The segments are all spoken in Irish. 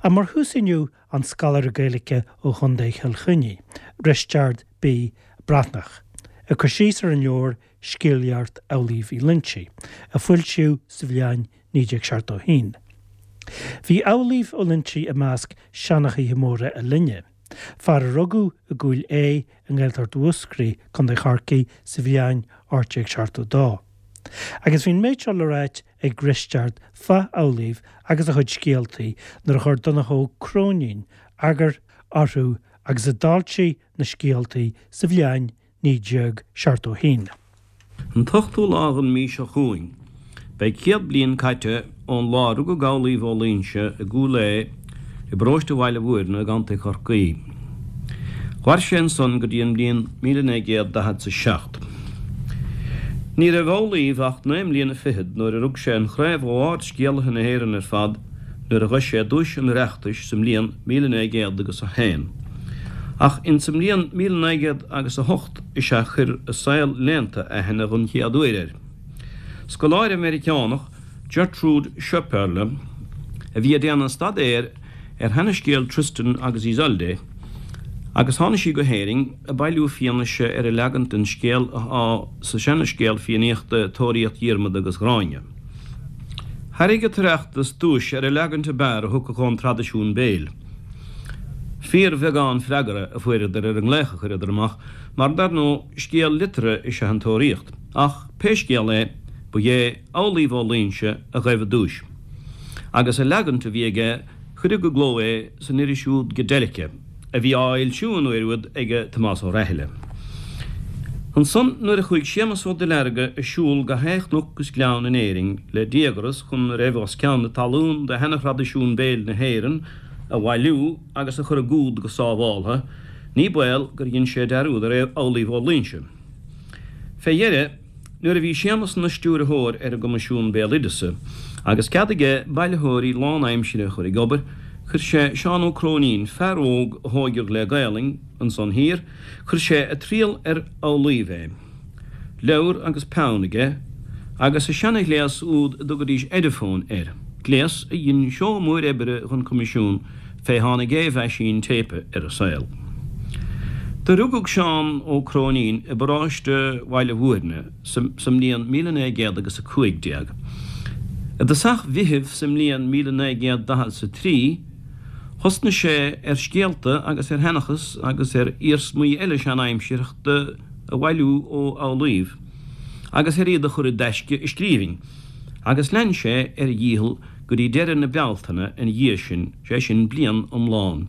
Ach mar thús inniu an scoláire Gaeilge ó Chontae Chill Chainnigh, Risteard B. Breathnach, ag cur síos ar an leabhar Scéalaíocht Amhlaoibh Uí Loingsigh, a foilsíodh sa bhliain 1971. Bhí Amhlaoibh Ó Loingsigh i measc seanchaithe móra a linne, fear a rugadh i gCúil Aodha i nGaeltacht Mhúscraí, Co. Chorcaí, sa bhliain 1872. Agus bhí an méid seo le ráit ag Risteard fá Amhlaoibh agus a chuid scéaltaí nuair a chuir Donncha Ó Cróinín eagar orthu agus a d'fhoilsigh na scéaltaí sa bhliain 1971. An t-ochtú lá den mhí seo chugainn, beidh 100 bliain caite ón lá a rugadh Amhlaoibh Ó Loingsigh i gCúil Aodha i bparóiste Bhaile Mhúirne i gContae Chorcaí. Mhair sé ansan go dtí an mbliain 1947. Ní raibh Amhlaoibh ach naoi mbliana fichead nuair a rug sé an chraobh ó ard-scéalaithe na hÉireann ar fad nuair a ghoin sé duais an Oireachtais sa mbliain 1901. Ach insa mbliain 1908 is ea chuir an saol léannta aithne dhon chéad uair air. Scoláire Meiriceánach, Gertrude Schoepperle, a bhí ag déanamh staidéir ar sheanascéal Tristan agus Isolde agus tháinig sí go hÉirinn ag bailiú fianaise ar an leagan den scéal athá sa seanascéal Fiannaíochta Tóraíocht Dhiarmada agus Ghráinne. Thairg an tOireachtas duais ar an leagan ab fhearr a thiocfadh ón traidisiún béil. Fíorbheagán freagra a fuaireadar ar an nglaoch a chuireadar amach, mar dar ndóigh, scéal liteartha is ea an Tóraíocht. Ach, pé scéal é, ba é Amhlaoibh Ó Loingsigh a ghaibh an duais. Agus an leagan a bhí aige, cuireadh i gcló é san iris úd Gadelica, a bhí á fhoilsiú an uair úd ag Tomás Ó Raithile. Ansan nuair a chuaigh Séamus Ó Duilearga ag siúl gach aon chnoc is gleann in Éirinn le díogras chun a raibh os cionn na talún de sheana-thraidisiún béil na hÉireann a bhailiú agus a chur i gcumhad go sábháltha, ní baol gur dhein sé dearúd ar Amhlaoibh Ó Loingsigh. Fé dheireadh, Nuair a bhí Séamus ina stiúrthóir ar an gCoimisiún Béaloideasa, agus cead aige bailitheoirí lánaimsire a chur ag obair, chuir sé Seán Ó Cróinín, fear óg a thóigeadh le Gaelainn ansan thiar, chuir sé ag triall ar Amhlaoibh é. Leabhar agus peann aige, agus a seana-ghléas úd a dtugaidís Ediphone air, gléas a dhein seó mór oibre dhon Choimisiún fé tháinig aon mheaisín téipe ar an saol. Do rugadh Seán Ó Cróinín i bparóiste Bhaile Mhúirne sa mbliain 1915. I dtosach Mheithimh sa mbliain 1943 thosnaigh sé ar scéalta agus ar sheanchas agus ar iarsmaí eile seanaimsearthachta a bhailiú ó Amhlaoibh agus ar iad a chur i dtaisce i scríbhinn agus lean sé ar a dhícheall go dtí deireadh na Bealtaine ina dhiaidh sin, sé sin bliain iomlán.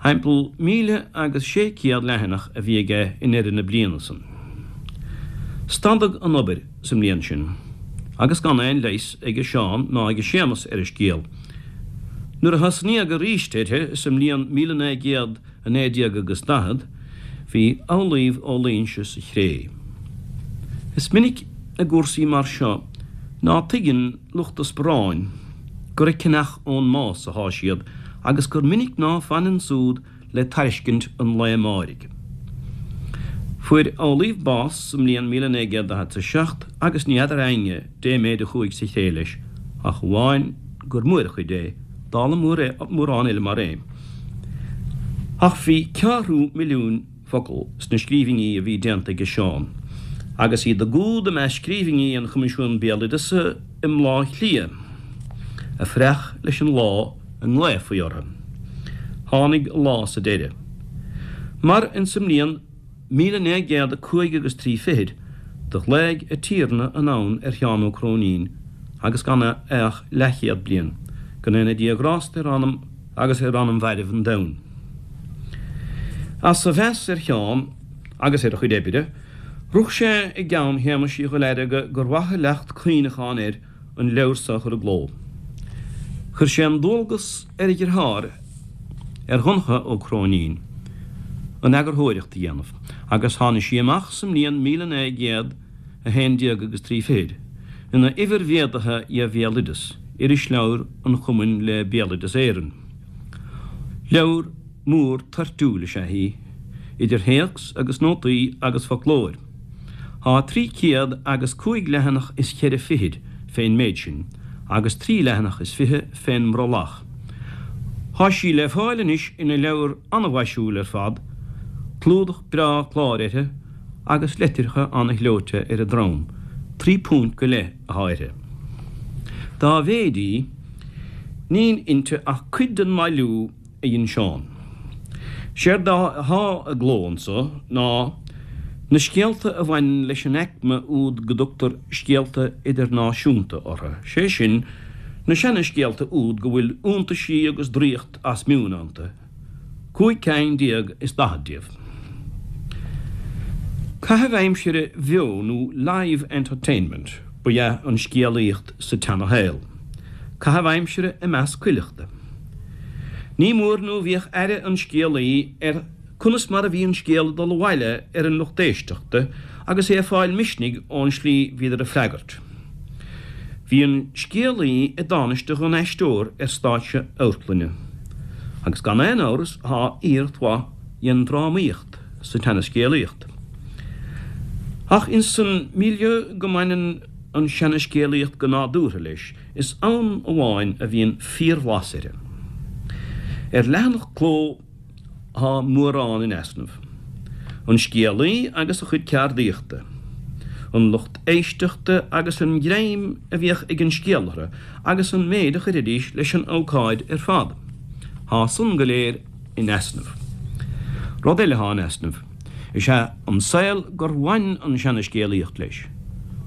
Thimpeall míle agus sé céad leathanach a bhí aige i ndeireadh na bliana san. Stadadh an obair sa mbliain sin, agus gan aon leigheas aige Seán ná aige Séamus ar an scéal. Nuair a thosnaíodh aríst uirthi sa mbliain 1900, 19 agus 40, bhí Amhlaoibh Ó Loingsigh sa chré. Is minic i gcúrsaí mar seo ná tuigeann lucht a sparáin gur ag ceannach ón mbás athá siad agus gur minic ná fanann súd le tairiscint an lae amáirigh. Fuair Amhlaoibh bás sa mbliain 1947 agus ní fheadar éinne dé méid a chuaigh sa chré leis ach amháin gur mór a chuid é, dála mórán eile mar é. Ach bhí ceathrú milliúin focal sna scríbhinní a bhí déanta aige Seán, agus iad i gcumhad i measc scríbhinní an Choimisiúin Béaloideasa i mBleá Cliath, ag fuireach leis an lá a nglaofaí orthu. Tháinig a lá sa deireadh. Mar insa mbliain. 1905 agus trí fichid, do ghlaoigh a Tiarna anonn ar Sheán Ó Cróinín agus gan é ach leathchéad bliain, go ndéana Dia grásta ar anam agus ar anam mhairbh an domhain. As a mheas ar Sheán agus ar a chuid oibre, rith sé i gceann Shéamais Uí Dhuilearga gur mhaith an leacht cuimhneacháin air an leabhar so a chur i gcló. Chuir sé an dualgas ar a dheartháir, ar Dhonncha Ó Cróinín, an eagarthóireacht a dhéanamh, agus tháinig sí amach sa mbliain 1911 agus trí fichid, ina uimhir mhéadaithe dhe Bhéaloideas, irisleabhar an Chumainn le Béaloideas Éireann. Leabhar mór toirtiúil is ea í, idir théacs agus nótaí agus foclóir. Thá trí céad agus cúig leathanach is cheithre fichid fén méid sin, agus trí leathanach is fiche fén mbrollach. Thá sí le fáil anois ina leabhar ana-mhaisiúil ar fad, clúdach breá cláir uirthi agus litreacha ana-ghleoite ar a drom, £3 go leith athá uirthi. Dá mhéid í, níl inti ach cuid den mbailiú a dhein Seán. Séard athá i gcló anso ná na scéalta a bhaineann leis an aicme úd go dtugtar scéalta idirnáisiúnta orthu, sé sin, na seana-scéalta úd go bhfuil iontaisí agus draíocht as meon iontu, 15 ceann is 40 díobh. Caitheamh aimsire bheo nó live entertainment ba ea an scéalaíocht sa tseana-shaol, caitheamh aimsire i measc cuileachta. Ní mór nó bhíodh aire an scéalaí ar conas mar a bhí an scéal ag dul abhaile ar an lucht éisteachta agus é ag fáil misnigh ón slí bhíodar ag freagairt. Bhí an scéalaí i dtánaiste dhon aisteoir ar stáitse amharclainne. Agus gan aon amhras thá iarracht mhaith dhen drámaíocht sa tseana-scéalaíocht. Ach ins an milieu go mbaineann an seana-scéalaíocht go nádúrtha leis, is ann amháin a bhíonn fíor-bhlas uirthi. Ar leathanach cló. Thá mórán in easnamh. An scéalaí agus a chuid ceardaíochta. An lucht éisteachta agus an greim a bhíodh ag an scéal orthu agus an méid a chuiridís leis an ócáid ar fad. Thá san go léir in easnamh. Rud eile athá in easnamh, is ea an saol gur bhain an seana-scéalaíocht leis.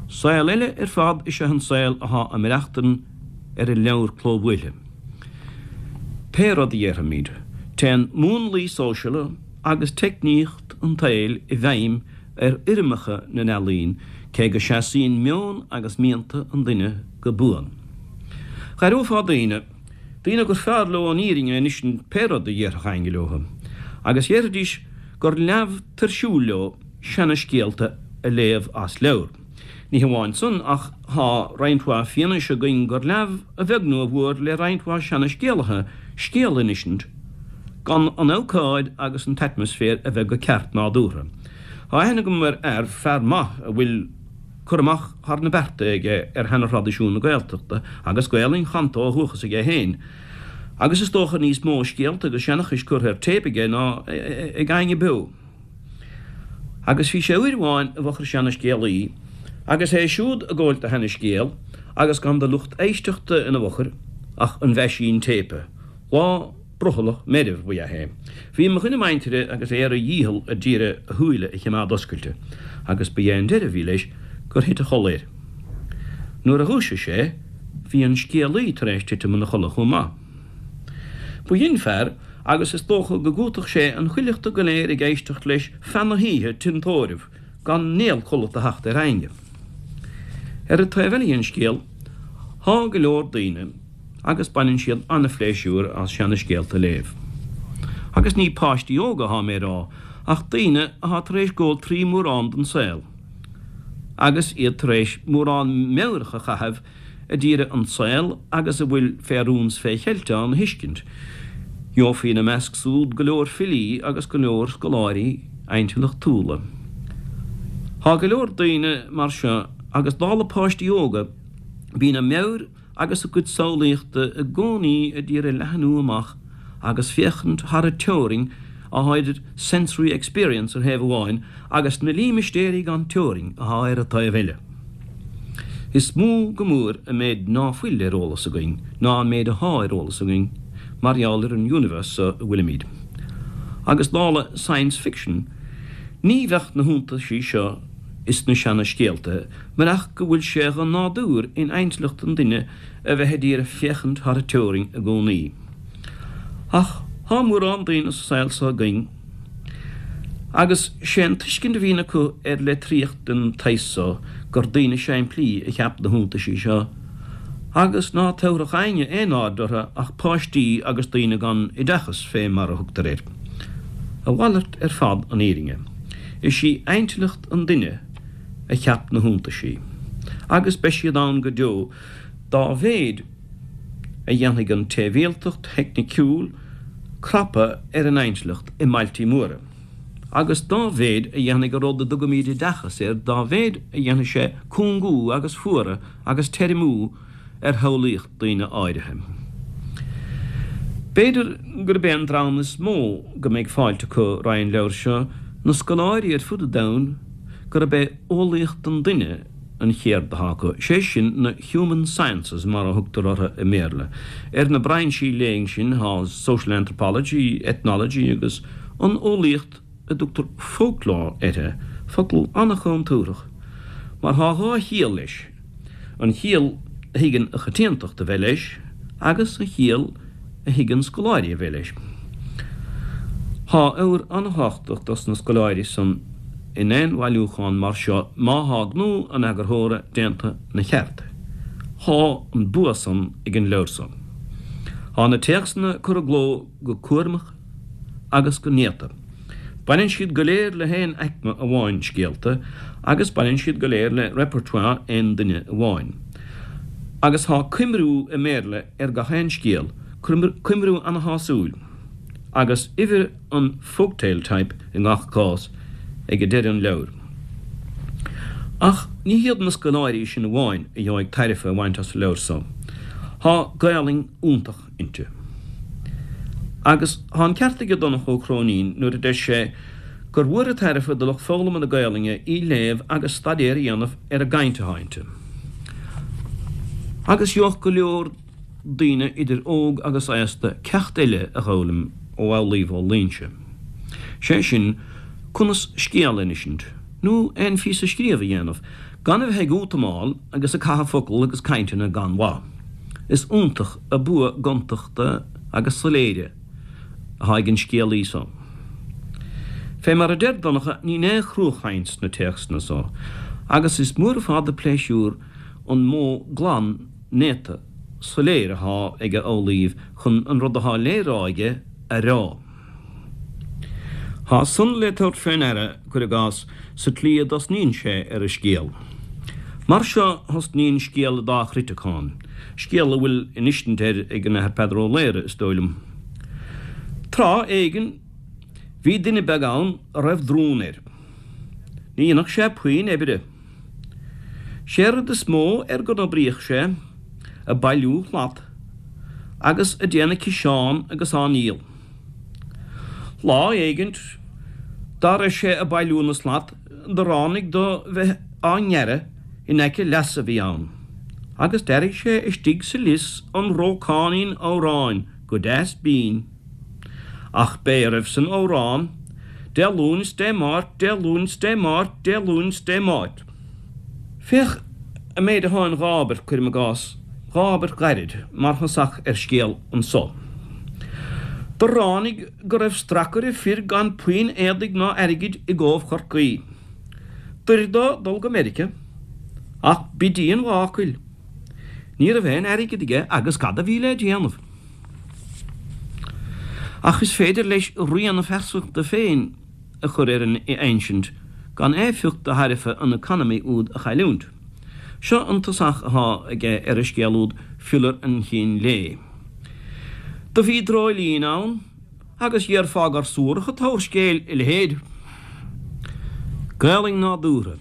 Saol eile ar fad is ea an saol athá a maireachtain ar an leabhar clóbhuailthe. Pé rud a dhéarfaimid, téann múnlaí sóisiala agus teicníocht an tsaoil i bhfeidhm ar fhoirmeacha na n-ealaíon, cé go seasaíonn meon agus mianta an duine go buan. Dh'aireofá daoine, daoine gur fearr leo an fhírinne a insint pé rud a dhéarfadh éinne leo, agus dhéarfaidís gur leamh tuirsiúil leo seana-scéalta a léamh as leabhar. Ní hamháin san, ach thá roinnt mhaith fianaise againn gur leamh a bheag nó a mhór le roinnt mhaith seana-scéalaithe scéal a insint gan an ócáid agus an t-atmaisféar a bheith go ceart nádúrtha. Thá aithne agam ar fhear, fear maith a bhfuil cur amach thar na bearta aige ar sheana-thraidisiún na Gaeltachta agus Gaolainn chanta ó dhúchas aige féin, agus is dócha níos mó scéalta agus seanchais curtha ar téip aige ná ag éinne beo. Agus bhí sé uair amháin i bhfochair seana-scéalaí, agus é siúd ag góilt a sheana-scéal, agus gan de lucht éisteachta ina bhfochair ach an mheaisín téipe. Lá brothallach meirbh ba ea é. Bhí mo dhuine muintire agus é ar a dhícheall a d'iarraidh a shúile a chimeád oscailte, agus ba é an deireadh a bhí leis gur thit a chodladh air. Nuair a dhúisigh sé, bhí an scéalaí tar éis titim ina chodladh chomh maith. B'shin fear agus is dócha go gcúiteodh sé an chuileachta go léir ag éisteacht leis feadh na hoíche tinn tórraimh gan néal codlata a theacht ar éinne. Ar an taobh eile den scéal, thá go leor daoine agus baineann siad an-phléisiúr as seana-scéalta a léamh. Agus ní páistí óga athá mé a rá, ach daoine athá tar éis gabháil trí mórán den saol, agus iad tar éis mórán meabhrach a chaitheamh a d'iarraidh an saol agus a bhfuil fé rún 's fé cheilt ann a thuiscint. Gheofaí ina measc súd go leor filí agus go leor scoláirí intleachtúla. Thá go leor daoine mar seo agus dála páistí óga bíonn a meabhair agus a gcuid samhlaíochta i gcónaí a d'iarraidh leathnú amach agus féachaint thar an teorainn athá idir sensory experience ar thaobh amháin agus na límistéirí gan teorainn athá ar an taobh eile. Is mó go mór an méid ná fuil ar eolas againn ná an méid athá ar eolas againn mar gheall ar an universe so a bhfuilimid. Agus dála science fiction, ní bheadh na hiontaisí seo is na seana-scéalta murach go bhfuil sé dhe nádúr in intleacht an duine a bheith a d'iarraidh féachaint thar an teorainn i gcónaí. Ach thá mórán daoine sa saol so againn agus sé an tuiscint a bhíonn acu ar litríocht den tsaghas so gur daoine simplí a cheap na hiontaisí seo agus ná tabharfadh éinne aon aird orthu ach páistí agus daoine gan oideachas fé mar a thugtar air. A mhalairt ar fad an fhírinne. Is í intleacht an duine a cheap na hiontaisí agus beidh siad ann go deo dá mhéid a dhéanfaidh an tsibhialtacht theicniciúil crapadh ar an intleacht i mbailtí móra, agus dá mhéid a dhéanfaidh an rud a dtugaimid oideachas air, dá mhéid a dhéanfaidh sé cúngú agus fuaradh agus teirmiú ar shamhlaíocht daoine áirithe. B'fhéidir gurb é an dream is mó go mbeidh fáilte acu roimh an leabhar seo na scoláirí ar fud an domhain gurb é eolaíocht an duine an cheird atá acu, sé sin na human sciences mar a thugtar orthu i mBéarla. Ar na brainsí léinn sin tá social anthropology, ethnology agus an eolaíocht a dtugtar folklore uirthi, focal an-chontúrthach mar tá dhá chiall leis. an chiall a thuigeann an choitiantacht a bheith leis agus an chiall a thuigeann scoláirí a bheith leis. Tá ábhar an-thábhachtach dos na scoláirí san in aon bhailiúchán mar seo má thá gnó an eagarthóra déanta 'na cheart. Thá an bua san ag an leabhar so. Thá na téacsanna curtha i gcló go cúramach agus go néata. Baineann siad go léir le haon aicme amháin scéalta agus baineann siad go léir le repertoire aon duine amháin. Agus thá coimriú i mBéarla ar gach aon scéal, coimriú ana-shásúil, agus uimhir an folktale type i ngach cás ag deireadh an leabhair. Ach ní hiad na scoláirí sin amháin a gheobhaidh tairbhe a bhaint as an leabhar so. Thá Gaolainn iontach inti. Agus tá an ceart aige Donncha Ó Cróinín nuair a deir sé gur mhór an tairbhe do lucht foghlama na Gaolainne í léamh agus staidéar a dhéanamh ar an gcaint atá inti. Agus gheobhadh go leor daoine idir óg agus aosta ceacht eile a dh'fhoghlaim ó Amhlaoibh Ó Loingsigh. Sé sin, conas scéal a insint, nó aon phíosa scríobh a dhéanamh, gan a bheith ag útamáil agus ag caitheamh focal agus cainteanna gan mhaith. Is iontach a bua gontachta agus soiléire atá ag an scéalaí so. Fé mar a deir Donncha níl aon chruachaint sna téacsanna so agus is mór ar fad a pléisiúr an modh glan néata soiléir athá ag Amhlaoibh chun an rud athá lé rá aige a rá. Thá san le tabhairt fé ndeara, cuir i gcás, sa tslí a dtosnaíonn sé ar a scéal. Mar seo thosnaíonn scéal an dá chruiteacán, scéal a bhfuil insint air ag an Athair Peadar Ó Laoghaire, is dóigh liom. Tráth éigin bhí duine beag ann a raibh drún air. Ní dhéanfadh sé puinn oibre. Sé rud is mó ar go n-oibríodh sé, ag bailiú slat agus ag déanamh ciseán agus á ndíol. Lá éigint dá raibh sé ag bailiú na slat do ráinig dó bheith á ngearradh in aice leasa a bhí ann, agus d'airigh sé istigh sa lios an rócáinín amhráin go deas binn. Ach b'é a raibh san amhrán, Dé Luain 's Dé Máirt, Dé Luain 's Dé Máirt, Dé Luain 's Dé Máirt. Féach an méid athá in dhá abairt, cuirim i gcás, dhá abairt ghairid, mar thosach ar scéal anso. Do ráinig go raibh stracaire fir gan puinn éadaigh ná airgid i gCóbh Chorcaí. D'oir dó dul go Meirice, ach b'í an mhácail. Ní raibh aon airgead aige agus cad a bhí le déanamh? Ach is féidir leis rian a phearsantachta féin a chur ar an insint gan éifeacht de thairbhe an economy úd a chailliúint. Seo an tosach athá aige ar an scéal úd Fiolar an Chinn Lae. Do bhí dreoilín ann agus dhéarfá gur suarach an t-abhar scéil a leithéid. Gaelainn nádúrtha.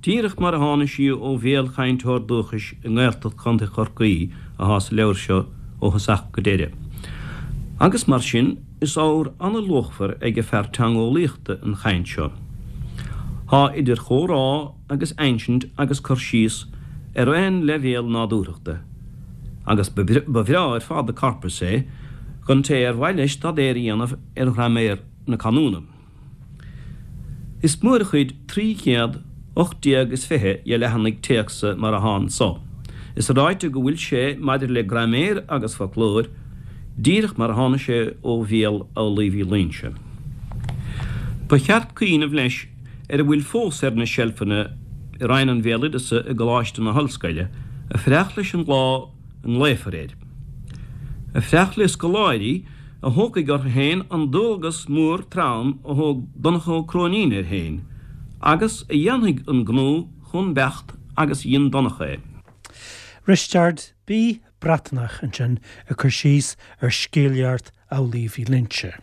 Díreach mar a tháinig sí ó bhéal chainteoir dúchais i nGaeltacht Chontae Chorcaí athá sa leabhar seo ó thosach go deireadh. Agus mar sin, is ábhar an-luachmhar ag an fear teangeolaíochta an chaint seo. Thá idir chomhrá agus insint agus cur síos ar aon leibhéal nádúrthachta, agus ba bhreá ar fad an corpus é don té ar mhaith leis staidéar a dhéanamh ar ghraiméar na canúna. Is mór a chuid 300 18 is 20 dhe leathanaigh téacsa mar athá anso. Is ráite go bhfuil sé maidir le graiméar agus foclóir, díreach mar a tháinig sé ó bhéal Amhlaoibh Uí Loingsigh. Ba cheart cuimhneamh leis ar a bhfuil fós ar na seilfeanna i Roinn an Bhéaloideasa i gColáiste na hOllscoile ag fanacht leis an lá a nglaofar air. Ag fanacht le scoláirí a thógfaidh orthu féin an dualgas mór trom a thóg Donncha Ó Cróinín air féin, agus a dhéanfaidh an gnó chomh beacht agus a dhein Donncha é. Risteard B. Breatnach ansin ag cur síos ar Scéalaíocht Amhlaoibh Uí Loingsigh.